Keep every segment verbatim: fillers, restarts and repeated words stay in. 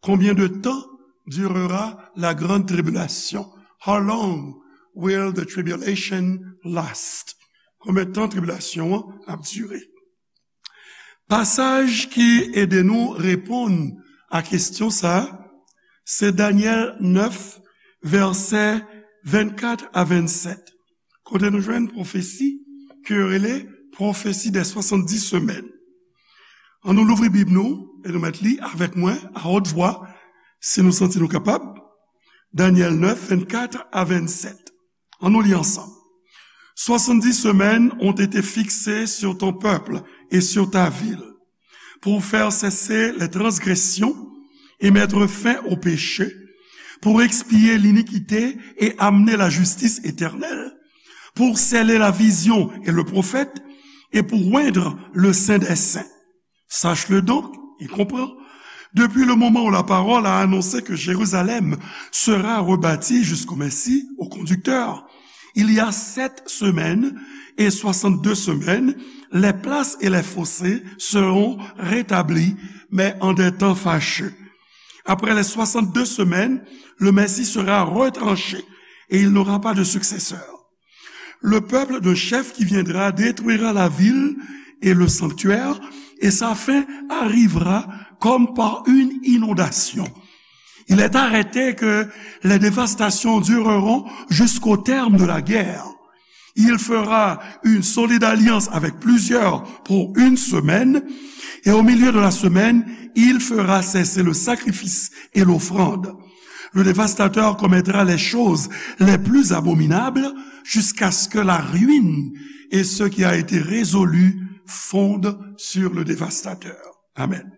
Combien de temps durera la grande tribulation? How long will the tribulation last? Konbyen tan tribilasyon an ap dire? Pasaj ki ede nou reponn a kesyon sa a, se Danyèl nèf, vèsè vennkat a vennsèt, kote nou jwenn pwofesi ke yo rele pwofesi dè swasanndis semèn. Ann nou louvri Bib nou e nou mèt li avèk mwen a wòt vwa, si nou santi nou kapab. Danyèl nèf, vennkat a vennsèt. Ann nou li ansanm. Soixante-dix semaines ont été fixées sur ton peuple et sur ta ville, pour faire cesser les transgressions et mettre fin au péché, pour expier l'iniquité et amener la justice éternelle, pour sceller la vision et le prophète, et pour oindre le Saint des Saints. Sache-le donc, et comprends, depuis le moment où la parole a annoncé que Jérusalem sera rebâtie jusqu'au Messie, au conducteur, il y a sept semaines et soixante-deux semaines, les places et les fossés seront rétablis, mais en des temps fâcheux. Après les soixante-deux semaines, le Messie sera retranché et il n'aura pas de successeur. Le peuple d'un chef qui viendra détruira la ville et le sanctuaire, et sa fin arrivera comme par une inondation. Il est arrêté que les dévastations dureront jusqu'au terme de la guerre. Il fera une solide alliance avec plusieurs pour une semaine, et au milieu de la semaine, il fera cesser le sacrifice et l'offrande. Le dévastateur commettra les choses les plus abominables jusqu'à ce que la ruine et ce qui a été résolu fondent sur le dévastateur. Amen.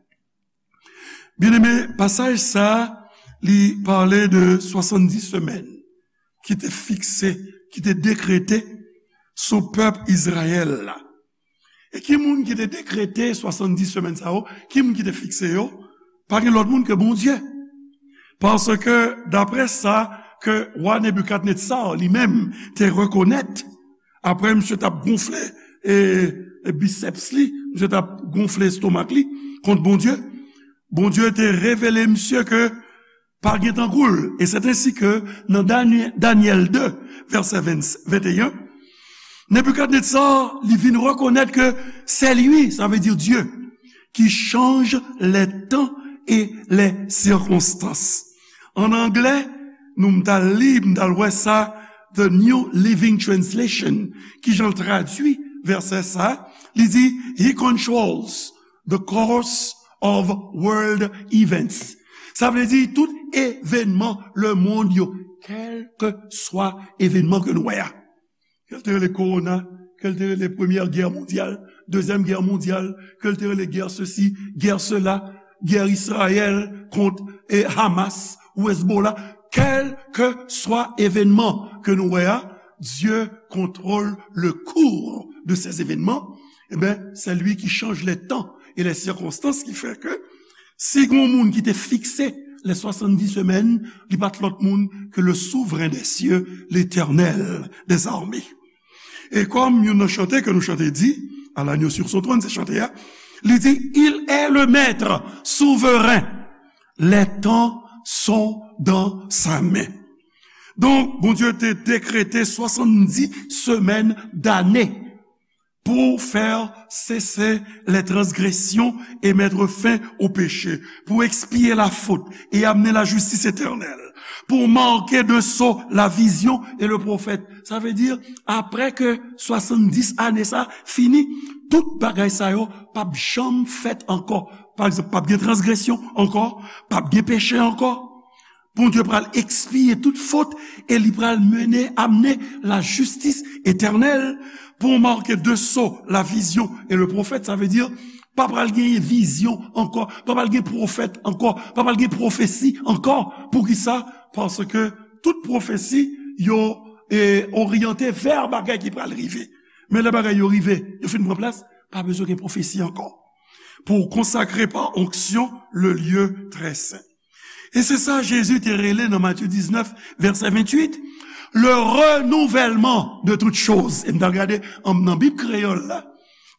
Byeneme, pasaj sa a, li pale de swasanndis semèn ki te fikse, ki te dekrete sou pèp Izrayèl la. E ki moun ki te dekrete swasanndis semèn sa yo? Ki moun ki te fikse yo? Pa gen lòt moun ke Bondye. Paske, daprè sa ke wa Nebikadnetsa li menm te rekonèt, apre misye t ap gonfle, e, e biceps li, misye t ap gonfle estomak li kont Bondye, Bondye te revele misye ke pa gen tankou l. E se ensi ke nan Dany-, Danyèl de, vèsè ven, venteyen, Nebikadnetsa, li vin rekonèt ke c'est lui, ça veut dire Dieu, qui change les temps et les circonstances. An anglè, nou m t al li, m t al wè sa, The New Living Translation, ki jan l tradui vèsè sa, li di, He controls the course of world events. Sa vle di tout evènman lemonn yo, kèlkeswa evènman ke nou wè a. Ke l te rele kowona, ke l te rele premyè gè mondyal, dezyèm gè mondyal, ke l te rele gè sesi, gè sela, gè Izrayèl kont, e, Hamas ou Hezbollah, kèlkeswa evènman ke nou wè a, Dieu contrôle le cours de ces événements. Eh ben, c'est lui qui change les temps et les circonstances, qui fait que si gon moun ki te fikse les soixante-dix semaines, li pa t lòt moun ke le souvren dè sye, Letènèl dèzame. E kòm youn nan chante ke nou chante di, à l'agneau sur son trône, se chante a, li di, Il est le maître souverain, les temps sont dans sa main. Donk, Bondye te dekrete swasanndis semèn dane pour faire cesser les transgressions et mettre fin au péché, pour expier la faute et amener la justice éternelle, pour marquer de sceau la vision et le prophète. Sa vle di, apre ke swasanndis ane sa fini, tout bagay sa yo p ap janm fèt ankò. Pa egzanp, p ap gen transgresyon ankò, p ap gen peche ankò. Bondye pral ekspye tout fot e li pral mennen, amenn lajistis etènèl pour marquer de sceau la vision et le prophète. Sa vle di, pa pral gen vizyon ankò, pa pral gen pwofèt ankò, pa pral gen pwofesi ankò. Poukisa? Paske tout pwofesi yo, e, oryante vè bagay ki pral rive. Men lè bagay yo rive, yo fin pran plas, pa bezwen gen pwofesi ankò. Pour consacrer par onction le lieu très saint. E se sa Jezi te rele nan Matye diznèf, vèsè venntuit, le renouvellement de toutes choses. E m t al gade an, nan Bib kreyòl la,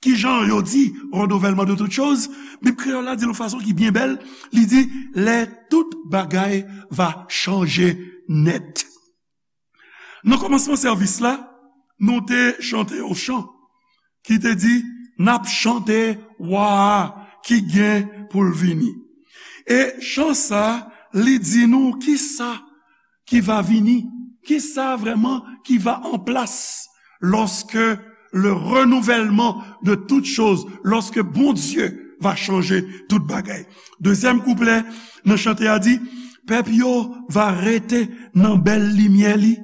kijan yo di renouvellement de toutes choses. Bib kreyòl la di l yon fason ki byen bèl. Li di, lè tout bagay va chanje nèt. Nan kòmansman sèvis la, nou te chante yon chan ki te di, "N ap chante wa a ki gen pou l vini." E chan sa, li di nou kisa ki va vini, kisa vrèman ki va an plas lorsque le renouvellement de toutes choses, lorsque Bondye va chanje tout bagay. Dezyèm kouplè nan chante a di, pèp yo va rete nan bèl limyè li.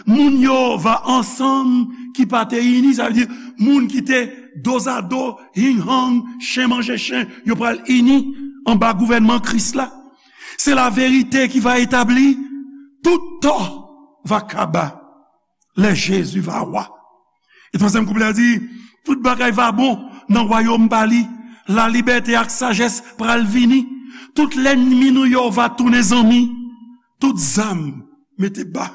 Moun yo va ansanm ki pa te ini, sa vle di moun ki te dozado, hing hang, chen manje chen, yo pral ini anba gouvènman Kris la. Se laverite ki va etabli, tout tò va kaba lè Jezi va wa. E twazyèm kouplè a di, tout bagay va bon nan wayòm pa li, lalibète ak sajès pral vini, tout lènmi nou yo va tounen zanmi, tout zam mete ba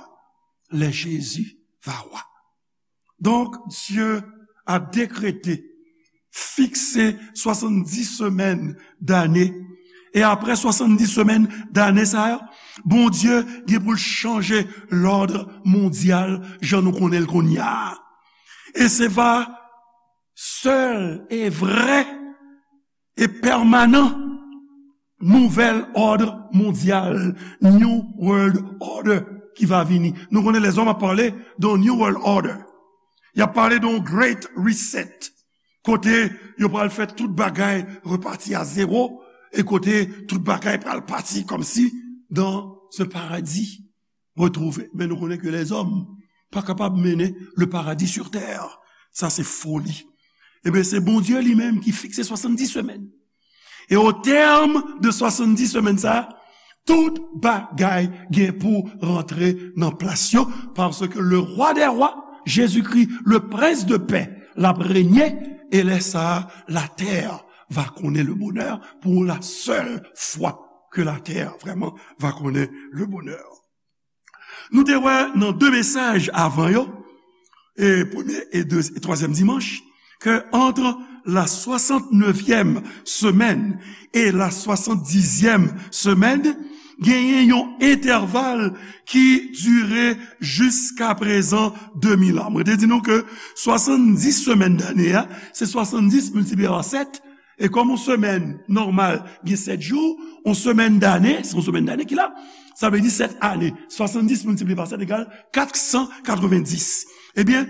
lè Jezi va wa. Donc, Dieu a décrété, fixé soixante-dix semaines d'année. E apre swasanndis semèn dane sa yo, Bondye gen pou l chanje lòd mondyal jan nou konnen l kounye a. E se va sèl e vrè e pèmanan nouvèl òd mondyal, New World Order, ki va vini. Nou konnen lèzòm ap pale de New World Order. Y ap pale de yon Great Reset, kote yo pral fè tout bagay repati a zewo, e kote tout bagay pral pati kòmsi dans un paradis retrouvé. Men nou konnen ke lèzòm pa kapab mennen le paradis sur terre. Sa se foli. Ebyen, se Bondye li menm ki fikse swasanndis semèn. E o tèm de swasanndis semèn sa, tout bagay gen pou rantre nan plas yo, paske le rwa dè rwa, Jezikri, le prens de pè, l ap renye, e lè sa a, latè va konnen le bonè pour la seule fois que la terre vraiment va konnen le bonè. Nou te wè nan de mesaj avan yo, e premye e de, e twazyèm dimanch, ke entre la soixante-neuvième semaine et la soixante-dixième semaine, genyen yon entèval ki dire jiska prezan de mil an. Mwen te di nou ke swasanndis semèn dane a, se swasanndis miltipliye pa sèt, e kòm yon semèn nòmal gen sèt jou, yon semèn dane, se yon semèn dane ki la, sa vle di sèt ane. Swasanndis miltipliye pa sèt egal kat san katrevenndis. Ebyen,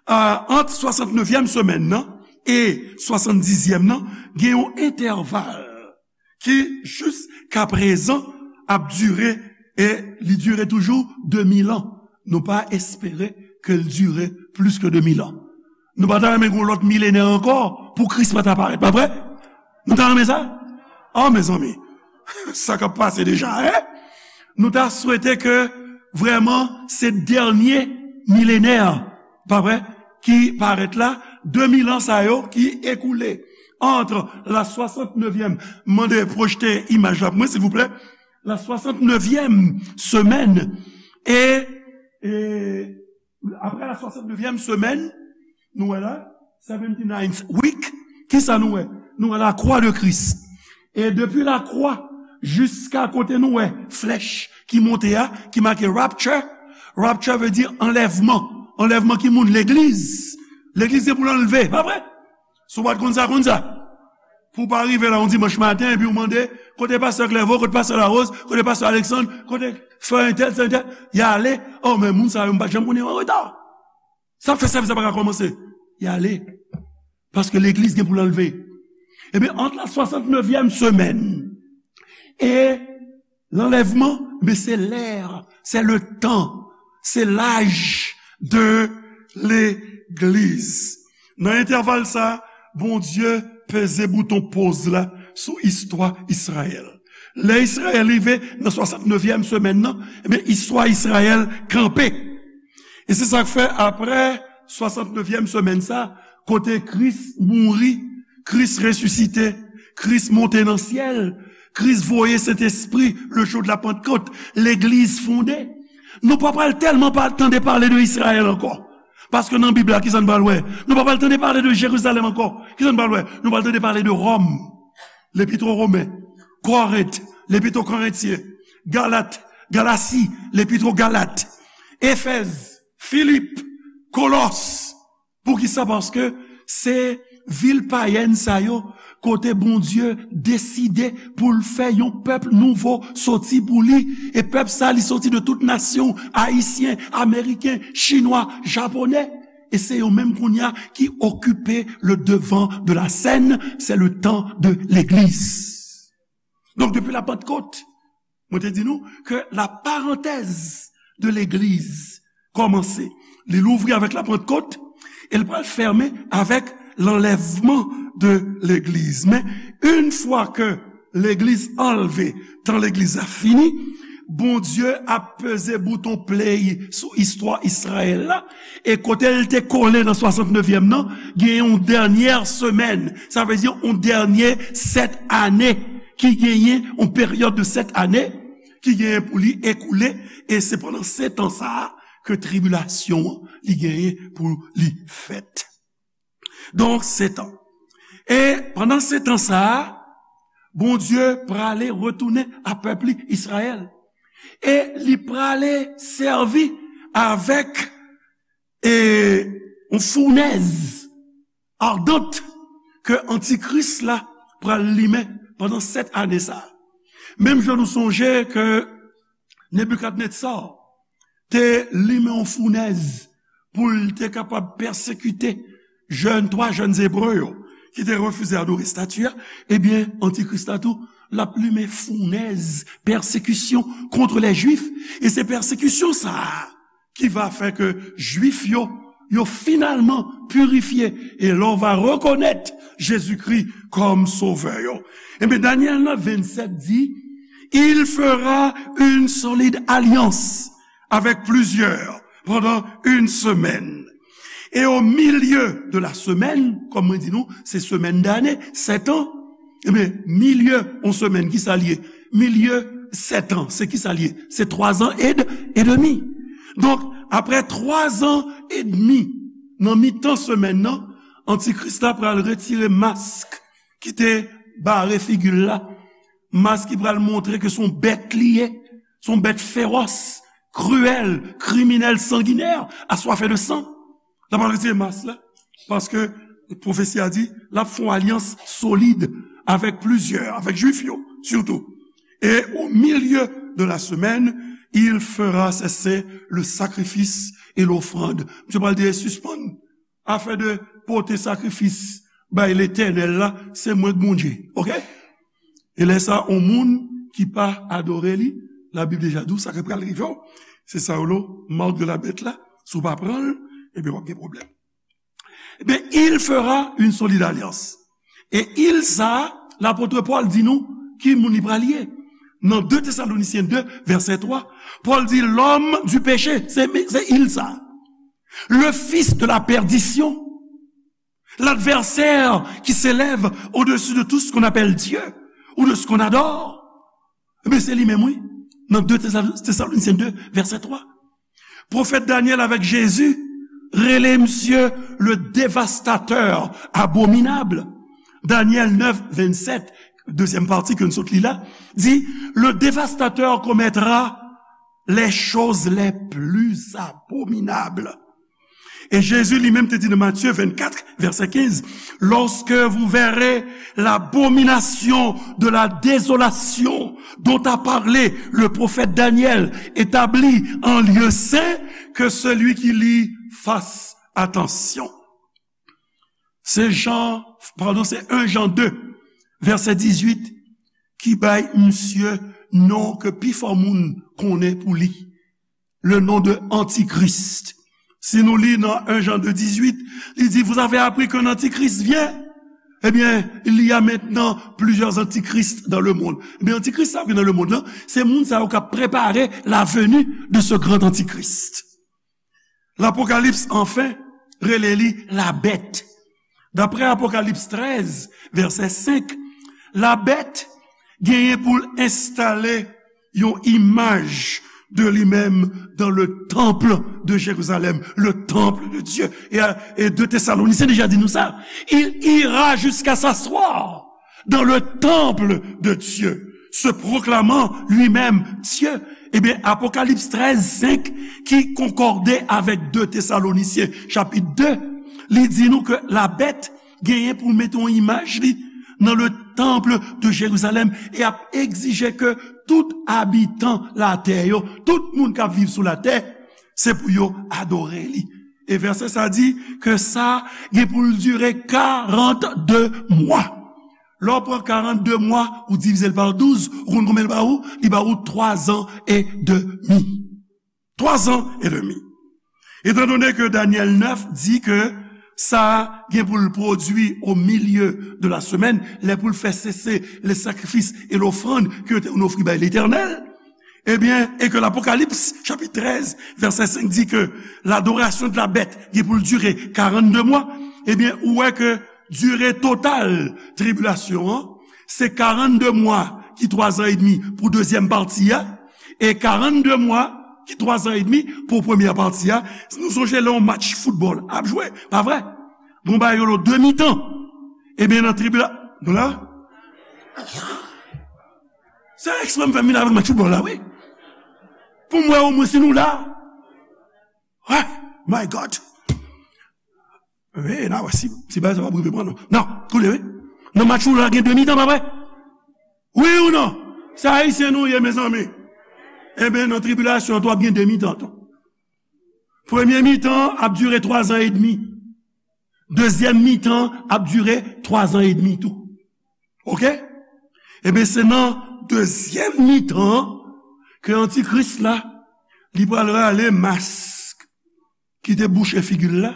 euh, ant swasannevyèm semèn nan e swasanndizyèm nan, gen yon entèval ki jiska prezan ap dire, e li dire toujou de mil an. Nou pa espere ke l dire plis ke de mil an. Nou pa ta renmen gen yon lòt milenè ankò pou Kris pa ta parèt, pa vre? Nou ta renmen sa? Oh, mezanmi, sa k ap pase deja, en? Nou ta swete ke vrèman se dènye milenè, pa vre, ki parèt la, de mil an sa yo ki ekoule entre la soixante-neuvième, mande pwojte imaj la pou mwen, silvouplè, la soixante-neuvième semaine, e, e apre la soixante-neuvième semaine, nou wè la, seventy-ninth week, kisa nou wè? Nou wè la croix de Christ. E depi la croix jiska kote nou wè flèch ki monte a, ki make rapture. Rapture vle di anlèvman. Anlèvman ki moun? Legliz. Legliz se pou l anlve, pa vre? Si w pa t konn sa, konn sa. Pou w pa rive la yon dimanch maten, epi w mande, kote pastè Clerveau, kote pastè Larose, kote pastè Alexandre, kote frè entèl, sè entèl, y ale, oh, men moun sa yo, m pa t janm konnen yo an reta. Sa fè sèvis la pa ka kòmanse. Y ale. Paske legliz gen pou l anlve. Ebyen, ant la soixante-neuvième semaine e lanlèvman, men se lè, c'est le temps, c'est l'âge de l'église. Nan entèval sa, Bondye peze bouton poz la sou istwa Izrayèl. Lè Izrayèl rive nan swasannevyèm semèn nan, ebyen, istwa Izrayèl kanpe. E se sa k fè, apre swasannevyèm semèn sa, kote Kris mouri, Kris resisite, Kris monte nan syèl, Kris voye Sentespri le jou de la Pantkot, legliz fonde. Nou pa pral tèlman pa tande pale de Izrayèl ankò. Paske nan Bib la, kisa n pral wè? Nou pa pral tande pale de Jerizalèm ankò. Kisa n pral wè? Nou pral tande pale de Ròm, Lepit o Women, Korent, Lepit o Korentyen, Galat, Galasi, Lepit o Galat, Efèz, Filip, Kolòs. Poukisa? Paske se vil payèn sa yo, kote Bondye deside pou l fè yon pèp nouvo soti pou li. E pèp sa, li soti de tout nasyon, Ayisyen, Ameriken, Chinwa, Japonè. E se yo menm kounye a ki okipe le devant de la scène, c'est le temps de l'église. Donk, depi la Pantkot, mwen te di nou ke la parantèz de legliz kòmanse. Li louvri avèk la Pantkot e l pral fèmen avèk lanlèvman de legliz. Men, yon fwa ke legliz anlve, tan legliz la fini, Bondye ap peze bouton play sou istwa Izrayèl la, e kote l te kole nan swasantnevyèm nan, gen yon dènyè semèn, sa vle di yon dènye sèt ane ki genyen, yon peryòd de sèt ane ki genyen pou li ekoule, e se pandan setan sa a ke tribilasyon an li genyen pou li fèt. Donk, setan. E pandan setan sa a, Bondye prale retounen a pèp li, Izrayèl. E li prale sèvi avèk, e, yon founèz adant ke antikris la pral limen pandan sèt ane sa a. Menm jan nou sonje ke Nebikadnetza te limen yon founèz pou l te kapab pèsekite jèn, twa jèn Ebre yo ki te refize adore estati a, ebyen, antikris la tou, l ap limen founèz pèsekisyon kont lè Jwif. E se pèsekisyon sa a ki va fè ke Jwif yo, yo finalman pirifye. E lè w va rekonèt Jezikri kòm Sovè yo. Ebyen, Danyèl nèf vennsenk di, Il fera une solide alliance avec plusieurs pendant une semaine. Et au milieu de la semaine, kòm mwen di nou, se semèn dane, sèt an. Ebyen, milye yon semèn, ki sa l ye? Milye sèt an, se ki sa l ye? Se twa zan ed-, edmi. Donk, apre twa zan edmi, nan mitan semèn nan, antikris la pral retire mask ki te bare figi l la, mask ki pral montre ke se yon bèt li ye, se yon bèt fewòs, kriyèl, kriminèl, sanginè, aswafe de san. L ap retire mask la, paske pwofesi a di, l ap fè yon alyans solid avèk plizyè, avèk Jwif yo, sitou. Et au milieu de la semaine, il fera cesser le sacrifice et l'offrande. Misye pral di, sispann afè de pote sakrifis bay Letènèl la, se mwen k Bondye. Oke? E lè sa, yon moun ki pa adore li, Labib deja di w sa k pral rive w. Se sa yo rele marque de la bête la. Si w pa pran l, ebyen, w ap gen pwoblèm. Ebyen, il fera une solide alliance. E il sa, lapot Pòl di nou ki moun li pral ye. Nan de Tesalonisyen de, vèsè twa, Pòl di, l'homme du péché, se, se il sa. Le fils de la perdition. L'adversaire qui s'élève au-dessus de tout ce qu'on appelle Dieu ou de ce qu'on adore. Ebyen, se li menm, wi. Nan de Tesal-, Tesalonisyen de, vèsè twa. Pwofèt Danyèl avèk Jezi rele misye le dévastateur abominable. Danyèl nèf vennsenk, dezyèm pati ke n sot li la, di, le dévastateur commettra les choses les plus abominables. Et Jésus lui-même te dit dans Matthieu vingt-quatre, verset quinze, lorsque vous verrez l'abomination de la désolation dont a parlé le prophète Daniel établie en lieu saint, que celui qui lit fasse attention. Se Jan, padon, se en Jan de, vèsè dizuit, ki bay misye non ke pi fò moun konnen pou li. Le nom de Antichrist. Si nou li nan en Jan de dizuit, li di, vous avez appris qu'un antichrist vient. Ebyen, il y a maintenant plusieurs antichrists dans le monde. Ebyen, antikris sa ki nan lemonn nan, se moun sa yo k ap prepare la venue de ce grand antichrist. Lapokalips, anfen, rele li labèt. Daprè Apokalips trèz, vèsè senk, labèt genyen pou l enstale yon imaj de li menm dans le temple de Jérusalem, le temple de Dieu. E, e de Tesalonisyen deja di nou sa. Il ira jusqu'à s'asseoir dans le temple de Dieu. se proclamant lui-même Dieu. Ebyen, Apokalips trèz senk, ki konkòde avèk de Tesalonisyen, chapit de, li di nou ke la bèt genyen pou l mete yon imaj li nan le temple de Jérusalem e ap egzije ke tout abitan latè yo, tout moun k ap viv sou latè, se pou yo adore li. E vèsè sa di ke sa gen pou l dire karannde mwa. Lè w pran karannde mwa, ou divize l pa douz, ou konn konbyen l ba ou? Li ba ou twa zan e demi. Twa zan e demi. Étant donné que Daniel neuf di ke sa gen pou l pwodui au milieu de la semaine, lè pou l fè sese les sacrifices et l'offrande ke yo te konn ofri bay Letènèl, ebyen, e ke Lapokalips, chapit trèz, vèsè senk di ke l'adoration de la bête gen pou l dire karannde mwa, ebyen, ou wè ke dire total tribilasyon an, se karannde mwa ki twa zan edmi pou dezyèm pati a, e karannde mwa ki twa zan edmi pou premyè pati a. Si nou sonje lè yon match foutbòl ap jwe, pa vre? Gon bagay yo rele de mitan. Ebyen, nan tribila-, nou la? Se eksprè m fè m vin avèk match foutbòl la, wi. Pou m wè omwen si nou la. Ah, my God. Wi, n a wè si, si bagay sa p ap rive pran nou. Non, koute, wi. Nan match ou la gen de mitan, pa vre? Wi ou non? Se Ayisyen nou ye, mezanmi. Ebyen, nan tribilasyon an tou, ap gen de mitan tou. Premye mitan ap dire twa zan edmi. Dezyèm mitan ap dire twa zan edmi tou. Oke? Ebyen, se nan dezyèm mitan an ke Antikris la, li pral rale mask ki te bouche figi l la,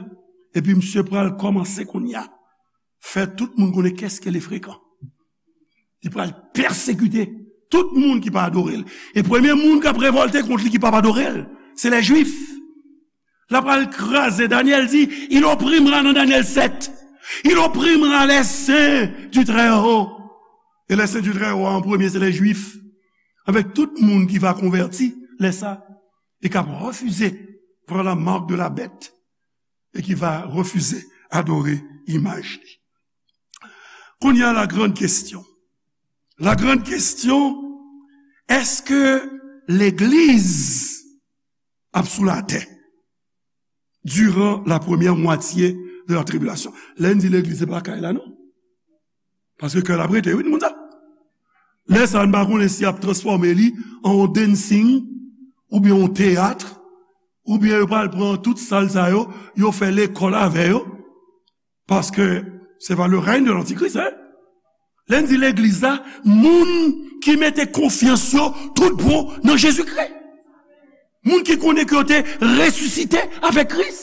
epi misye pral kòmanse kounye a fè tout moun konnen kèske le frekan. Li pral pèsekite tout moun ki pa adore l. E premye moun k ap revòlte kont li ki p ap adore l, se lè Jwif. L ap pral kraze. Danyèl di, il opprimera nan Danyèl sèt. Il opprimera les saints du Très-Haut. E les saints du Très-Haut an premye, se lè Jwif. Avèk tout moun ki va konvèti, lè sa, e k ap refize pran la mark de la bèt e ki va refize adore imaj li. Kounye a, la grande question. La grande question, èske legliz ap sou latè durant la première moitié de la tribulation? Lè n di legliz, se pa kay la, non. Paske kè l ap rete, wi, moun sa. Lè sa, n pa konnen si y ap transfòme li an yon dancing, oubyen yon teyat, oubyen yo pral pran tout sal sa yo, yo fè lekòl avè yo. Paske se pa le règne de l'antichrist, hein? Lè n di legliz la, moun ki mete konfyans yo tout bon nan Jezikri. Moun ki konnen ke yo te resisite avèk Kris.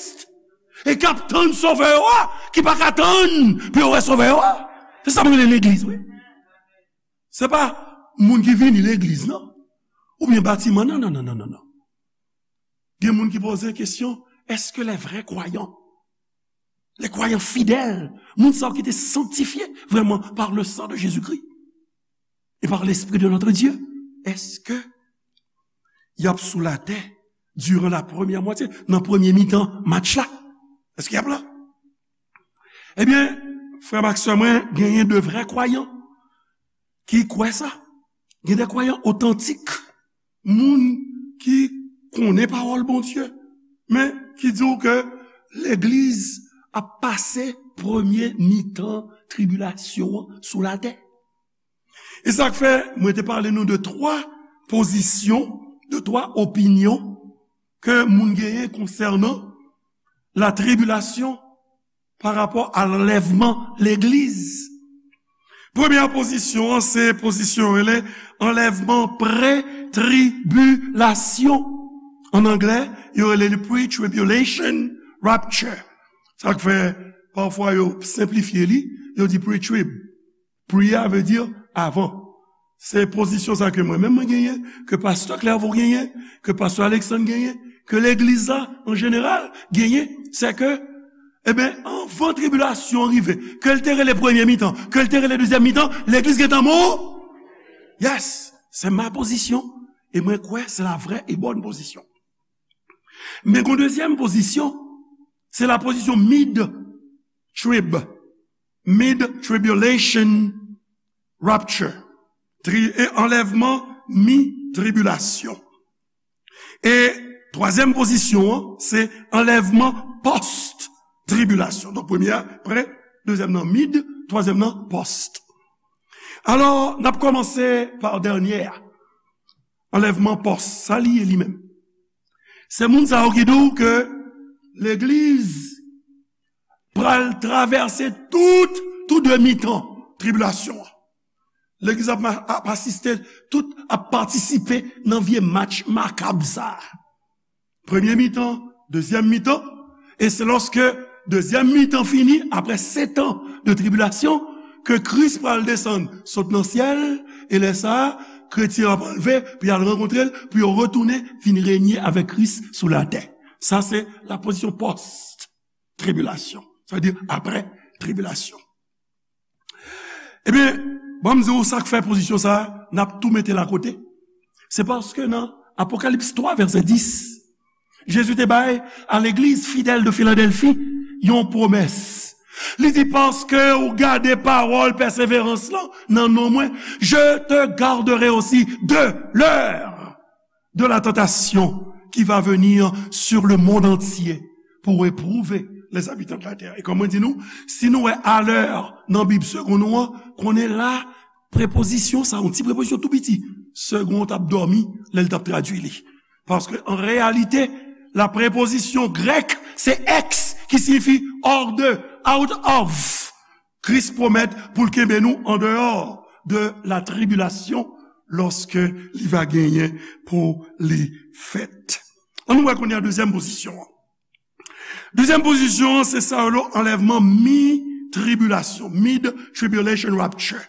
E k ap tann Sovè yo a, ki pa ka tann pou yo wè Sovè yo a. Se sa m rele legliz, wi. Se pa moun ki vini legliz, non. Oubyen batiman, non, non, non, non, non, non. Gen moun ki poze kesyon, èske les vrais croyants, les croyants fidèles, moun sa yo ki te sanktifye vrèman par le sang de Jésus-Christ et par l'Esprit de notre Dieu, èske y ap sou latè durant la première moitié, nan premye mitan match la? Èske y ap la? Ebyen, frè m ak sè mwen, genyen de vrè kwayan ki kwè sa. Gen de kwayan otantik, moun ki konnen pawòl Bondye, men ki di w ke legliz ap pase premye mitan tribilasyon an sou latè. E sa k fè mwen te pale nou de twa pozisyon, de twa opinyon ke moun genyen konsènan la tribulation par rapport à l'enlèvement legliz. Premyè pozisyon an, se pozisyon yo rele anlèvman pre-tribilasyon. An anglè, yo rele li pre-tribulation rapture. Sa k fè, pafwa, yo senplifye li, yo di pre-trib. Pre a vle di avan. Se pozisyon sa ke mwen menm mwen genyen, ke pastè Clairvaux genyen, ke pastè Alexandre genyen, ke legliz la, an jeneral, genyen, se ke, ebyen, anvan tribilasyon an rive, ke l te rele premye mitan, ke l te rele dezyèm mitan, legliz gentan mò. Yes, c'est ma position. E mwen kwè se la vraie et bonne position. Men gon dezyèm pozisyon, se la pozisyon mid-trib, mid-tribulation rapture. tri-, e anlèvman mi-tribilasyon. E twazyèm pozisyon an, se anlèvman pòs-tribilasyon. Donk, premye a pre, dezyèm nan mid, twazyèm nan pòs. Alò, n ap kòmanse pa dènye a. Anlèvman pòs, sa li ye li menm? Se moun sa yo ki di w ke legliz pral travèse tout, tou de mitan tribilasyon an. Legliz ap, ap asiste, tout ap patisipe nan vye match makab sa a. Premye mitan, dezyèm mitan, e se lòske dezyèm mitan fini, apre setan de tribilasyon, ke Kris pral desann sot nan syèl, e lè sa a, kretyen yo ap anlve, pou y al rankontre l, pou yo retounen vin renye avèk Kris sou latè. Sa se la pozisyon pòs-tribilasyon. Sa vle di apre tribilasyon. Ebyen, ban m di w sa k fè pozisyon sa a, n ap tou mete l akote. Se paske nan Apokalips twa, vèsè dis, Jezi te bay a legliz fidèl de Filadèlfi yon pwomès. Li di, "Paske ou gade pawòl pèseverans lan nan non mwen, je te garderai aussi de l'heure de la tentation qui va venir sur le monde entier pour éprouver les habitants de la terre." E kòm mwen di nou, si nou wè alè nan Bib segonn nou an, konnen la, prepozisyon sa, yon ti prepozisyon tou piti, segonn t ap dòmi lè l t ap tradui li. Paske, an reyalite, la prepozisyon grèk, se ex, ki siyifi hors de, out of. Kris pwomèt pou l kenbe nou andeyò de la tribilasyon lòske li va genyen pou li fèt. Ann nou wè kounye a dezyèm pozisyon an. Dezyèm pozisyon an, se sa yo rele anlèvman mi-tribilasyon, mid-tribulation rapture,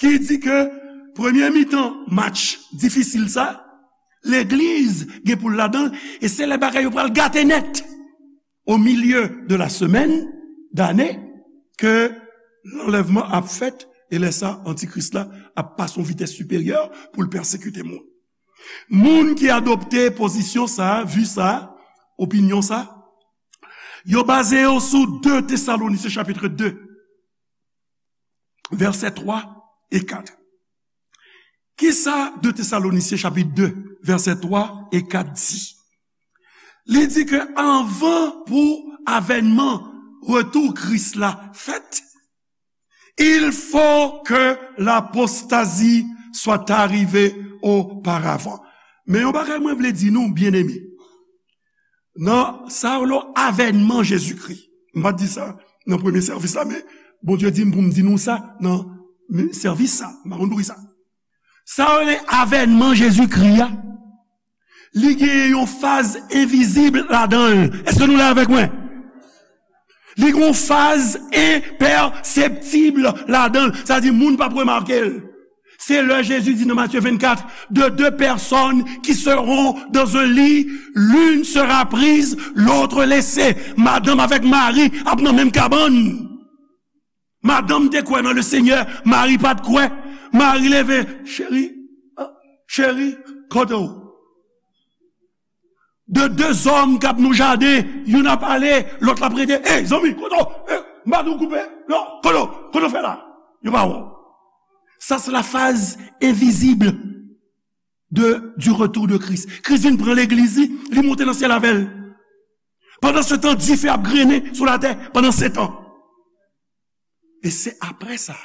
ki di ke premye mitan match difisil sa, legliz gen pou l ladan l, e se lè bagay yo pral gate nèt. Au milieu de la semaine d'année ke lanlèvman ap fèt, e lè sa, antikris la ap pase yon vitès siperyè pou l pèsekite moun. Moun ki adopte pozisyon sa, vi sa, opinyon sa, yo baze yo sou de Tesalonisyen chapit de, vèsè twa e kat. Kisa de Tesalonisyen chapit de, vèsè twa e kat di? Li di ke anvan pou avènman retou Kris la fèt, il faut que l'apostasie soit arrivée auparavant. Men yon bagay mwen vle di nou, byeneme. Nan sa yo rele avènman Jezikri. M pa t di sa nan premye sèvis la, men Bondye di m pou m di nou sa nan sèvis sa. M pa konn poukisa sa. Sa yo rele avènman Jezikri a, li gen yon faz envizib ladan l. Èske nou la avèk mwen? Li gen yon faz enpèseptib ladan l. Sa di, moun p ap remake l. Se lè Jezi di nan Matye vennkat, de deux personnes qui seront dans un lit, l'une sera prise, l'autre laissée. Madanm avèk mari ap nan menm kabann. Madanm te kwè nan le Seigneur, mari pa t kwè. Mari leve, cheri, ah, cheri, kote w? De de zòm k ap nan jaden, youn ap ale, lòt la ap rete. Ey, zanmi, kote w? Ey, m pa di w koupe? Non, kote w? Kote w fè la? Yo pa wè w. Sa se la faz envizib de, du retour de Christ. Kris vin pran legliz li, li monte nan syèl avè l. Pandan se tan, dife ap grennen sou latè pandan sèt an. E se apre sa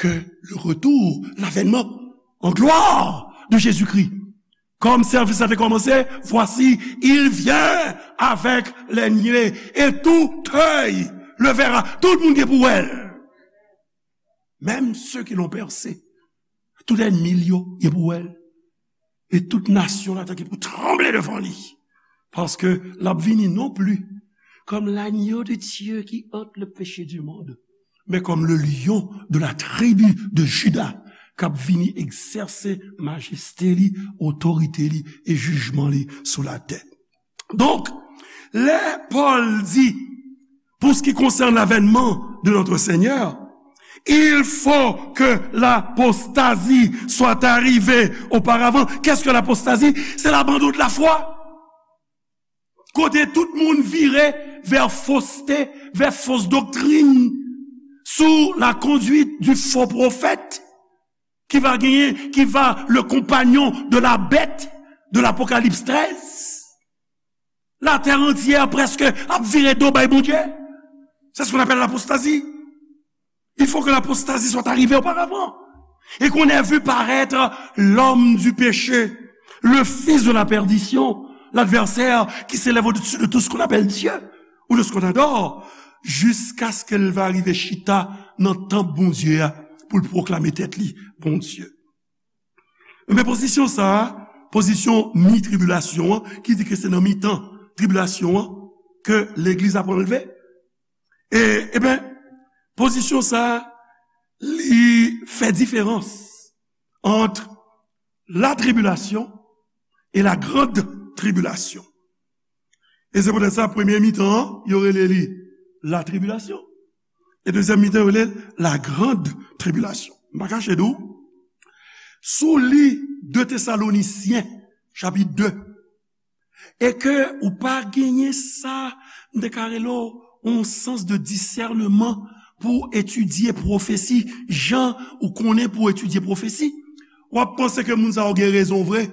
ke le retour, l'avènement en gloire de Jésus-Christ. Kòm sèvis la te kòmanse, voici, il vient avec les nuées, et tout œil le verra. Tout moun gen pou wè l. Même ceux qui l'ont percé, tout ènmi l yo gen pou wè l. E tout nasyon latè ki pou tranble devan li. Paske l ap vini non pli kòm l'agneau de Dieu qui ôte le péché du monde, men kòm le lion de la tribu de Juda, k ap vini egzèse majeste li, otorite li e jijman li sou latè. Donk, lè Pòl di, pour ce qui concerne l'avènement de notre Seigneur, il faut que l'apostasie soit arrivée auparavant. Qu'est-ce que l'apostasie? C'est l'abandon de la foi. Kote tout moun vire vè foste, vè fos doktrin, sou la conduite du faux prophète. qui va gagner, qui va le compagnon de la bête de l'Apocalypse treize. La terre entière presque ap vire do bay Bondye. C'est ce qu'on appelle l'apostasie. Il faut que l'apostasie soit arrivée auparavant. Et qu'on ait vu paraître l'homme du péché, le fils de la perdition, l'adversaire qui s'élève au-dessus de tout ce qu'on appelle Dieu ou de ce qu'on adore, jusqu'à ce que l va rive chita nan tanp Bondye a pou l pwoklame tèt li Bondye. Men pozisyon sa a, pozisyon mi tribilasyon an, ki di ke se nan mitan tribilasyon an ke legliz ap anlve. E, ebyen, pozisyon sa a, li fè diferans ant la tribulation et la grande tribulation. E se poutèt sa, premye mitan an, yo rele li la tribulation. E dezyèm mitan, yo rele l la grande tribulation. M pa kache di w, si w li de Tesalonisyen, chapit de, e ke ou pa genyen sa, m te ka rele w yon sans de discernement pou etidye pwofesi, jan ou konnen pou etidye pwofesi, w ap panse ke moun sa yo gen rezon vre.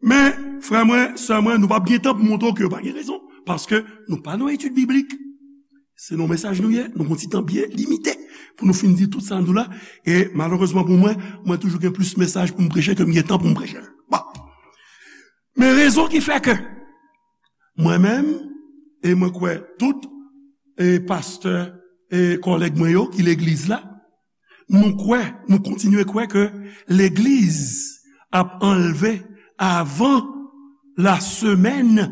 Men, frè mwen, sè mwen, nou p ap gen tan pou montre w ke yo pa gen rezon, paske nou pa nan etid biblik. Se nan mesaj nou ye, nou gon ti tan byen limite pou nou fin di tout sa nou la. E malerezman pou mwen, mwen toujou gen plis mesaj pou m preche ke m gen tan pou m preche l. Bon. Men rezon ki fè ke mwen menm, e mwen kwè tout, e pastè, e kòlèg mwen yo ki legliz la, nou kwè, nou kontinye kwè ke legliz ap anlve avan la semaine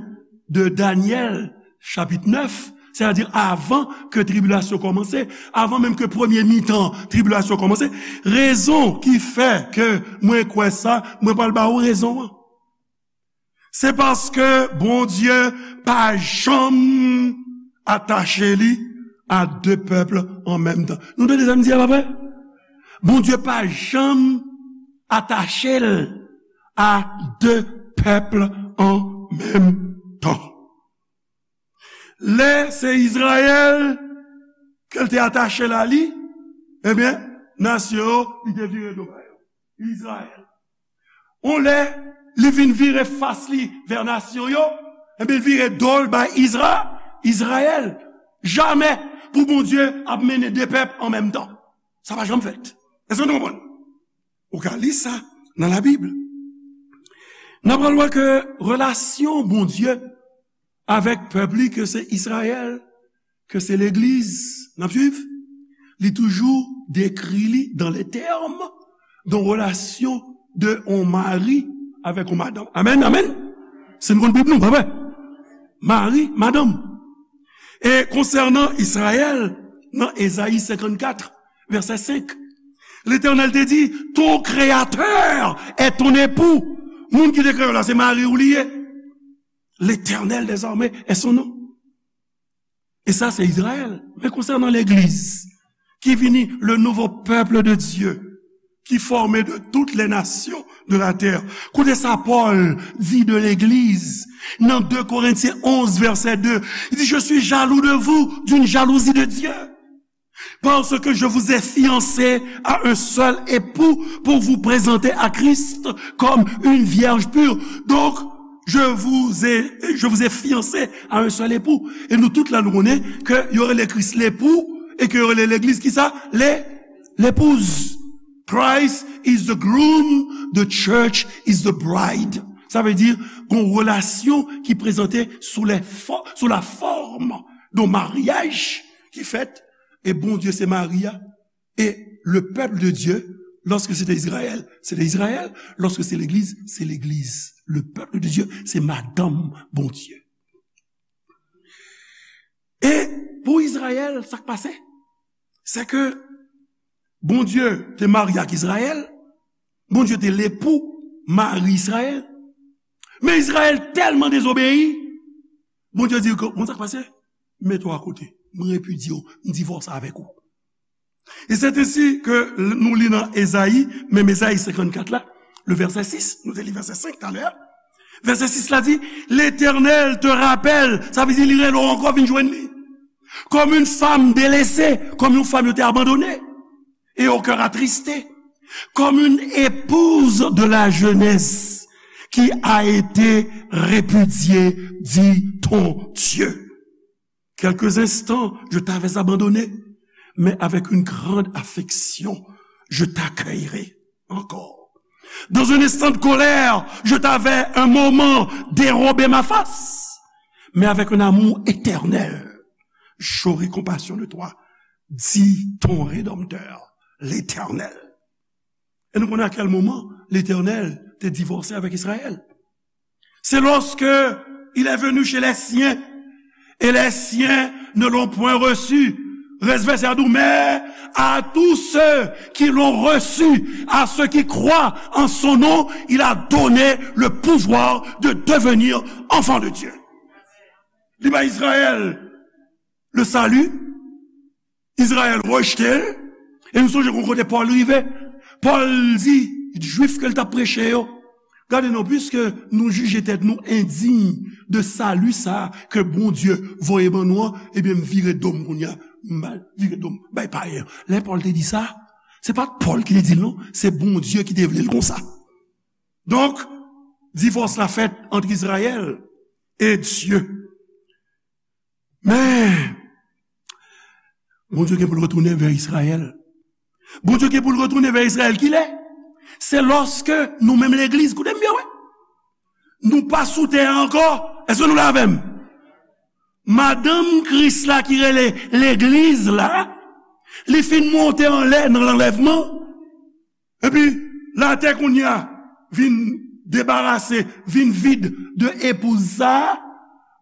de Daniel, chapitre neuf, c'est-à-dire avan ke tribilasyon kòmanse, avan menm ke premye mitan tribilasyon kòmanse. Rezon ki fè ke mwen kwè sa, mwen pral ba ou rezon an. Se paske Bondye pa janm atache li a de pèp an menm tan. Nou tande sa m di a, pa vre? Bondye pa janm atache l a de pèp an menm tan. Lè se Izrayèl ke l te atache l a li, ebyen, nasyon yo, li te vire do ba yo. Izrayèl. On lè, li vin vire fas li vè nasyon yo, ebyen, l vire do l bay Izra-, Izrayèl. Jamè pou Bondye ap mennen de pèp an menm tan. Sa pa janm fèt. Èske nou konprann? Ou ka li sa nan Labib. N ap pral wè ke relasyon Bondye avèk pèp li, ke se Izrayèl, ke se legliz, n ap swiv, li toujou dekri li dans les termes d'une relation de on mari avèk on madanm. Amèn, amèn. Se nou konn Bib nou, pa vre? Mari, madanm. E konsènan Izrayèl, nan Ezayi senkannkat, vèsè senk, Letènèl te di, ton créateur est ton époux. Moun ki te kreye w la, se mari w li ye. L'Éternel des armées est son nom. E sa, se Izrayèl. Men konsènan legliz, ki vini le nouveau peuple de Dieu, qui formé de toutes les nations de la terre. Koute sa Pòl di de legliz nan de Korentyen onz, vèsè de. Li di, je suis jaloux de vous, d'une jalousie de Dieu. Parce que je vous ai fiancés à un seul époux pour vous présenter à Christ comme une vierge pure. Donc, je vous ai, je vous ai fiancés à un seul époux. E nou tout la, nou konnen ke yo rele Kris lepou e ke yo rele legliz kisa? Le, l'épouse. Christ is the groom, the church is the bride. Sa vle di, gon relasyon ki prezante sou lè fò-, sou la forme d'un mariage ki fèt, e Bondye se mari a, e le peuple de Dieu, lorsque c'était Israël, c'était Israël, lorsque c'est l'église, c'est l'église. Le peuple de Dieu, se madanm Bondye. E pou Izrayèl, sa k pase? Se ke Bondye te marye ak Izrayèl, Bondye te lepou, mari Izrayèl. Men Izrayèl tèlman dezobeyi, Bondye di, bon, sa k pase? Mete w akote. Mwen repidye w, m divòse avèk ou. E c'est ainsi que nou li nan Ezayi, menm Ezayi senkannkat la, le verset six, nou te li verset cinq talè a. Verset six la di, L'Éternel te rappelle, sa vle di li rele w ankò vin jwenn li. Comme une femme délaissée, kòm yon fanm yo te abandone, et au cœur attristé. Comme une épouse de la jeunesse qui a été répudiée, dit ton Dieu. Quelques instants, je t'avais abandonné, mais avec une grande affection, je t'accueillerai encore. Dans un instant de colère, je t'avais un moment dérobé ma face, mais avec un amour éternel, j'aurai compassion de toi, dit ton Rédempteur, l'Éternel. E nou konnen a kèl moman Letènèl te divòse avèk Izrayèl. C'est lorsque il est venu chez les siens, et les siens ne l'ont point reçu. Rès vèsè a di w, mais à tous ceux qui l'ont reçu, à ceux qui croient en son nom, il a donné le pouvoir de devenir enfants de Dieu. Li bay Izrayèl le salut, Izrayèl rejte l, e nou sonje gon kote Pòl rive. Pòl di Jwif ke l t ap preche yo, gade non, piske nou jije tèt nou endiy de sali sa a ke Bondye voye ban nou an, ebyen, m vire do m kounye a, m al vire do m bay payen an. Lè Pòl te di sa, se pa t Pòl ki te di l non, se Bondye ki te vle l konsa. Donk, divòs la fèt ant Izrayèl e Dye. Men, Bondye gen pou l retounen vè Izrayèl. Bondye gen pou l retounen vè Izrayèl. Kilè? Se lòske nou menm legliz, koute m byen, wi. Nou pa sou tè a ankò. Èske nou la avè m? Madanm Kris la ki rele legliz la, li fin monte anlè nan lanlèvman. Epi, latè kounye a vin debarase, vin vid de epouz sa a,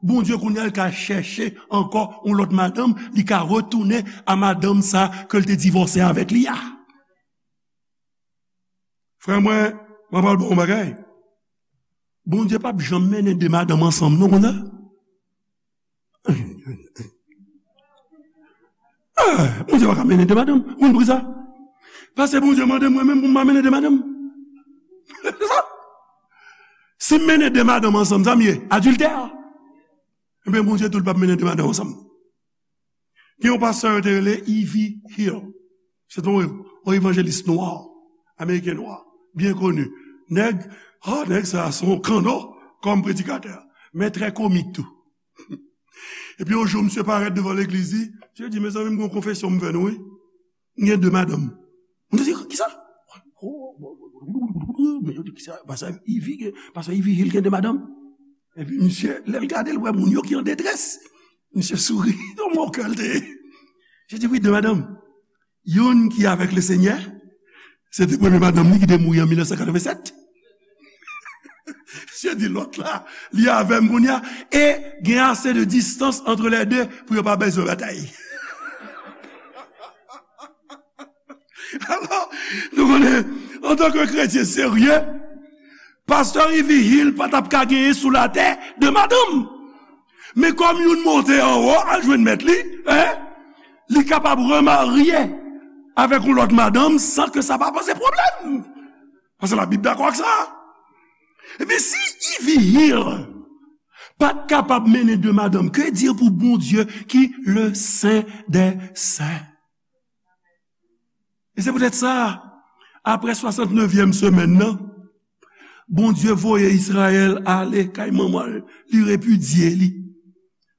Bondye kounye a l ka chèche ankò yon lòt madanm, li ka retounen a madanm sa a ke l te divòse avèk li a. Frè mwen, mwen pral ba w yon bagay. Bondye p ap janm mennen de madanm ansanm non, konn sa? Ah, Bondye pa ka mennen de madanm. Ou konn poukisa? Paske Bondye mande mwen menm pou m pa mennen de madanm. Si m mennen de madanm ansanm, sa m ye? Adiltè. Ebyen, Bondye tou l p ap mennen de madanm ansanm. Gen yon pastè yo te rele Ivy Hill. Se te yon, yon evanjelis nwa, ameriken nwa, byen koni. Nèg, ah, nèg sa a se yon kanno kòm predikatè, men trè komik tou. Epi yon jou, misye parèt devan legliz li, misye di, mezanmi, m gen yon konfesyon m fè nou, wi. M gen de madanm. Moun yo di, kisa? Men yo di, kisa? Pastè Ivy gen, pastè Ivy Hill gen de madanm. Epi misye, lè l gade, l wè moun yo ki an detrès. Misye souri, yon mò kè l te ye. Misye di, wi, de madanm. Youn ki avèk Lesenyè, se te premye madanm li ki te mouri an mil nèf san katrevennsèt. Misye di lòt la, li avè m kounye a, e gen ase de distans ant lè de pou yo pa bezwen batay. Alò, nou konnen, antanke kretyen serye, pastè Ivy Hill pa t ap ka genyen sou latè de madanm. Men kòm youn monte anwo al jwenn mèt li, en, li kapab remarye avèk yon lòt madanm san ke sa pa poze pwoblèm. Paske Labib dakò ak sa. Ebyen, si Ivy Hill pa t kapab mennen de madanm, que dire pou Bondye ki le Sen dè Sen? E se poutèt sa, apre swasantnevyèm semèn nan, Bondye voye Izrayèl ale kay manman l, li repidye li.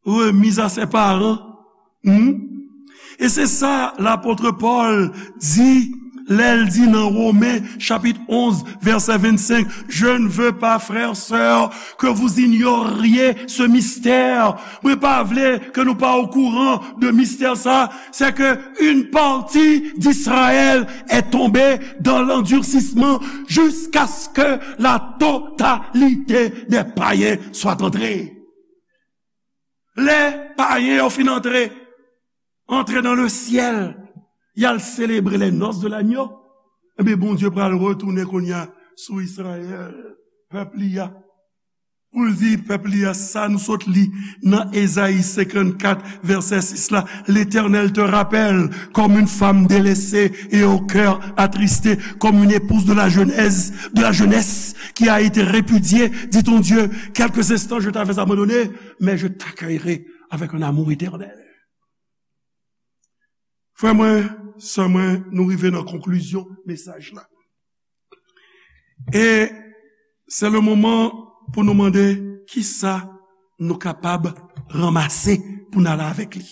Remise à ses parents. Hmm? E se sa lapot Pòl di lè l di nan Women chapit onz, vèsè vennsenk, je ne veux pas, frères, sœurs, que vous ignoriez ce mystère. Mwen pa vle ke nou pa okouran de mistè sa, c'est que une partie d'Israël est tombée dans l'endurcissement jusqu'à ce que la totalité des païens soient entrés. Lè payen yo fin antre, antre dans le ciel, y al selebre les noces de l'agneau, ebyen, Bondye pral retounen kounye a sou Izrayèl, pèp li a. Pou l di pèp li a sa nou sot li nan Ezayi senkannkat, vèsè sis la, L'Éternel te rappelle comme une femme délaissée et au cœur attristé, comme une épouse de la jeunesse, de la jeunesse qui a été répudiée, dit ton Dieu. Quelques instants, je t'avais abandonné, mais je t'accueillerai avec un amour éternel. Frè mwen, sè mwen, nou rive nan konklizyon mesaj la. E se le moman pou nou mande kisa nou kapab ranmase pou n ale avèk li.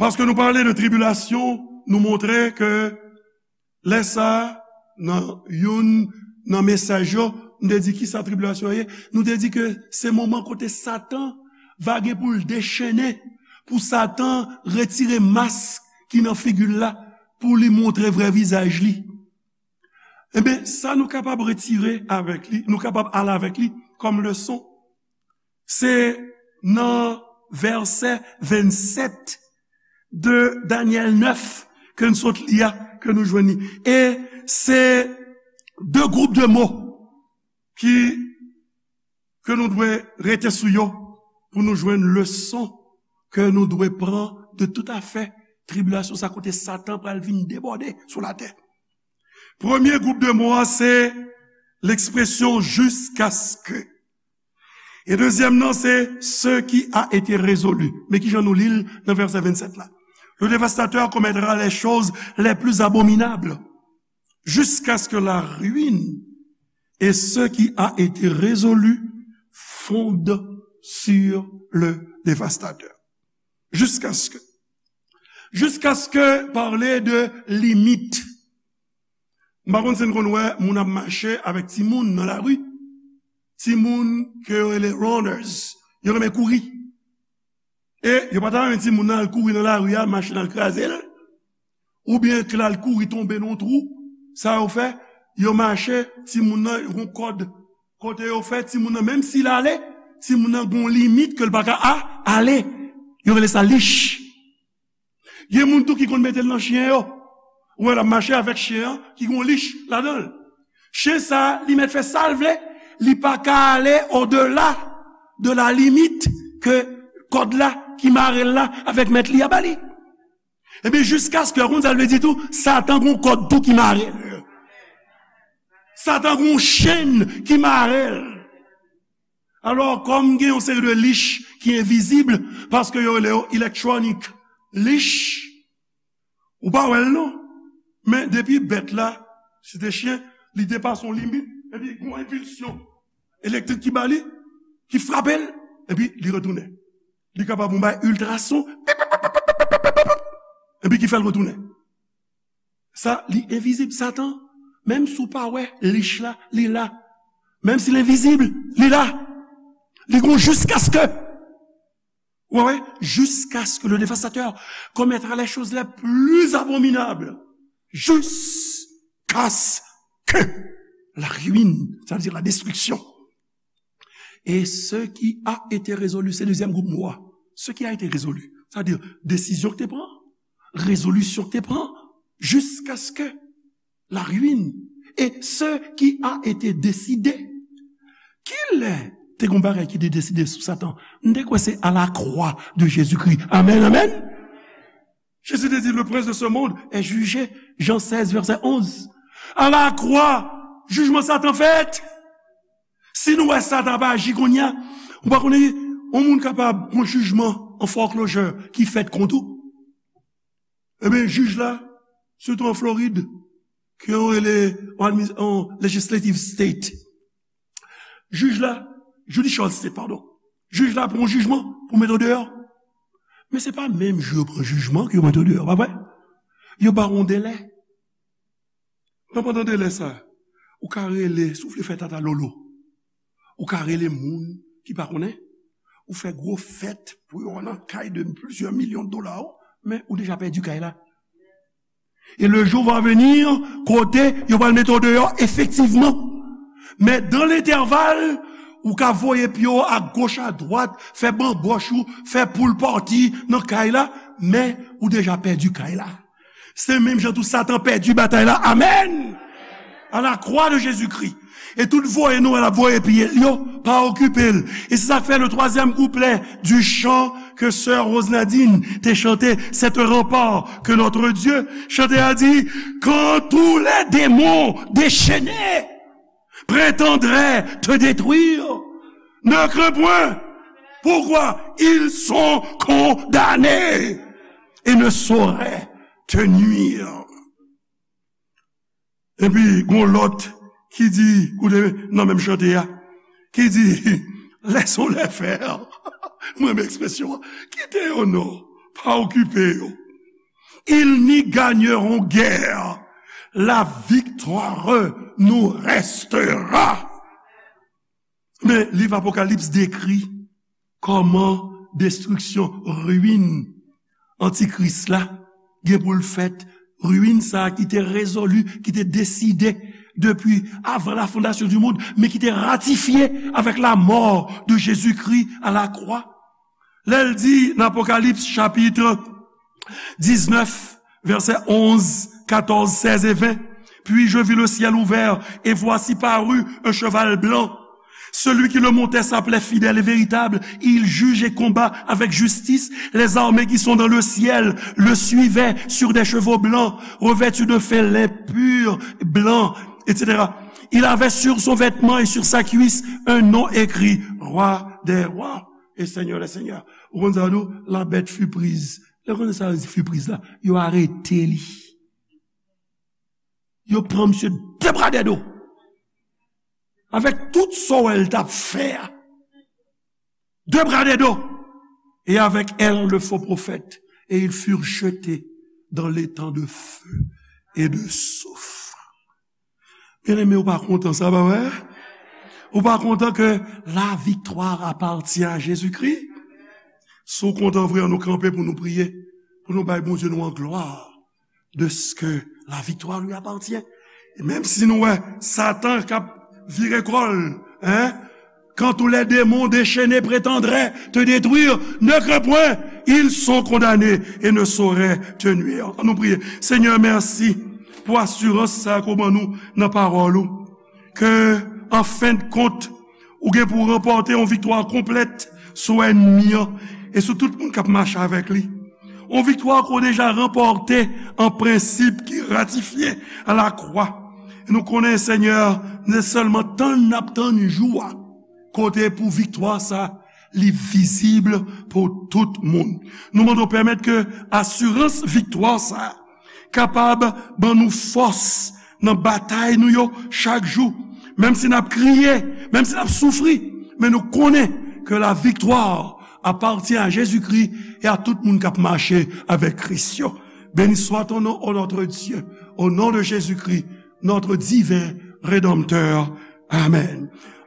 Paske nou pale de tribilasyon, nou montre ke lè sa a, nan youn nan mesaj yo, nou te di kisa tribilasyon ye. Nou te di ke se moman kote Satan va gen pou l dechennen, pou Satan retire mask ki nan figi l la, pou li montre vrè vizaj li. Ebyen, sa nou kapab retire avèk li, nou kapab ale avèk li kòm leson, se nan vèsè vennsèt de Danyèl nèf ke n sot li a, ke nou jwenn li. E se de gwoup de mo ki, ke nou dwe rete sou yo pou nou jwenn leson ke nou dwe pran de tout afè tribilasyon sa kote Satan pral vin debòde sou latè. Premye gwoup de mo a se lekspresyon jiskaske. E dezyèm nan se ce qui a été résolu. Men kijan nou li l nan vèsè vennsèt la. Le dévastateur commettra les choses les plus abominables jusqu'à ce que la ruine et ce qui a été résolu fondent sur le dévastateur. Jusqu'à ce que. Jusqu'à ce que pale de limit. M pa konn si n konn wè moun ap mache avèk timoun nan lari. Timoun ke yo rele runners. Yo renmen kouri. E yo pa ta renmen timoun nan al kouri nan lari a, machin al kraze l. Oubyen ke l al kouri tonbe nan yon twou. Sa yo fè, yo mache, timoun nan, yon kòd. Kote yo fè, timoun nan, menm si l ale, timoun nan gon limit ke l pa ka a, ale. Yo rele sa lich. Gen moun tou ki konn mete l nan chen yo. Ou wè l ap mache avèk chen an ki gon lich ladan l. Chen sa a, li mèt fè sa l vle, li pa ka ale odela de la limit ke kòd la ki mare l la avèk mèt li a ba li. Ebyen, jiskaske, ou konn sa l vle di tou, Satan gon kòd tou ki mare l. Satan gon chenn ki mare l. Alò, kòm gen yon seri de lich ki envizib, paske yo rele yo electronic lich, ou pa wè l non. Men depi bèt la, si te chen, li depase yon limit, epi gon enpilsyon elektrik ki ba li, ki frape l, epi li retounen. Li kapab yon bay iltrason, pip, pip, pip, epi ki fè l retounen. Sa, li envizib. Satan, menm si w pa wè lich la, li la. Menm si l envizib, li la. Li gon jiskaske. Ou wè, jiskaske le dévastateur commettra les choses les plus abominables. Jusqu'à ce que la ruine, sa vle di la destriksyon. E ce qui a été résolu, se dezyèm gwoup mo a. Ce qui a été résolu, sa vle di desizyon ki te pran, rezolisyon ki te pran, jusqu'à ce que la ruine et ce qui a été décidé. Kilè te gon bagay ki te deside sou Satan? M te kwè se à la croix de Jésus-Christ. Amèn, amèn. Jésus te di, le prince de ce monde est jugé. Jan sèz, vèsè onz. À la croix, jijman Satan fèt. Si nou wè Satan ap aji kounye a, ou pa konnen, yon moun kapab gon jijman an foreclosure ki fèt kont ou. Ebyen, jij la, sitou an Florid, ke yo rele an admi-, an legislative state. Jij la, judicial state, padon. Jij la pran yon jijman pou mete w deyò. Men se pa menm jou yo pran jijman ke yo mete w deyò, pa vre? Yo ba w yon delè. Nan pandan delè sa, ou ka rele, si w vle fè tata lolo, ou ka rele moun ki pa konnen, ou fè gwo fèt pou yo nan kay de plizyè milyon dola, men ou deja pèdi kay la. E le jou va venir, kote yo pral mete w deyò efektivman. Men dan lentèval, ou ka voye pye w a goch, a dwat, fè banbòch ou, fè pool party nan kay la, men ou deja pèdi kay la. Se menm jan tou Satan pèdi batay la. Amèn! À la croix de Jésus-Christ. E tout voye nou wè l ap voye pye l yo, pa okipe l. E se sa k fè le troisième couplet du chant que sœur Rose Nadine te chante, c'est un rempart que notre Dieu. Chante a di, quand tous les démons déchaînés prétendraient te détruire, ne crains point. Pourquoi? Ils sont condamnés et ne sauraient te nuire. Epi, gon lòt ki di, koute nan menm chante a, ki di, laissons-les faire. Mwen renmen ekspresyon an. Kite yo non, pa okipe yo. Ils n'y gagneront guère. La victoire nous restera. Men liv Apokalips dekri kòman destriksyon, ruin Antikris la gen pou l fèt. Ruin sa a ki te rezoli, ki te deside depi avan la fondation du monde, men ki te ratifye avèk la mort de Jésus-Christ à la croix. Lè l di nan Apokalips chapit diznèf, vèsè onz, katòz, sèz e ven, puis je vis le ciel ouvert, et voici parut un cheval blanc. Celui qui le montait s'appelait Fidèle et Véritable. Il juge et combat avec justice. Les armées qui sont dans le ciel le suivaient sur des chevaux blancs, revêtus de fin lin pur, blanc, et cetera. Il avait sur son vêtement et sur sa cuisse un nom écrit, Roi des rois et Seigneur des seigneurs. Ou konn sa yo di w, la bête fut prise. Lè w konnen sa yo di fut prise la, yo arete li. Yo pran misye de bra de do. Avèk tout sa w wè l t ap fè a. De bra de do. Et avec elle, le faux prophète. Et ils furent jetés dans l'étang de feu et de soufre. Byeneme, ou pa kontan sa, pa vre? Ou pa kontan ke la victoire appartient à Jésus-Christ? Si w kontan vre, ann nou kanpe pou nou priye, pou nou bay Bondye nou an glwa, de ce que la victoire lui appartient. E menm si nou wè Satan k ap vire kò l, hein, quand tous les démons déchaînés prétendraient te détruire, ne crains point, ils sont condamnés et ne sauraient te nuire. Ann nou priye. Senyè, mèsi pou asirans sa ke w ban nou nan pawòl ou, ke, an fen de kont, ou gen pou w ranpòte yon viktwa konplèt sou ènmi an e sou tout moun k ap mache avèk li. Yon viktwa ke w deja ranpòte an prensip ki ratifye a la kwa. E nou konnen, Senyè, se sèlman tann n ap tann jou a, kote pou viktwa sa, li vizib pou tout moun. Nou mande w pèmèt ke asirans viktwa sa kapab ban nou fòs nan batay nou yo chak jou. Menm si n ap kriye, menm si n ap soufri, men nou konnen ke la victoire appartient à Jésus-Christ et à tout moun k ap mache avèk Kris yo. Béni soit ton nom, ô notre Dieu, au nom de Jésus-Christ, notre divin Rédempteur. Amen.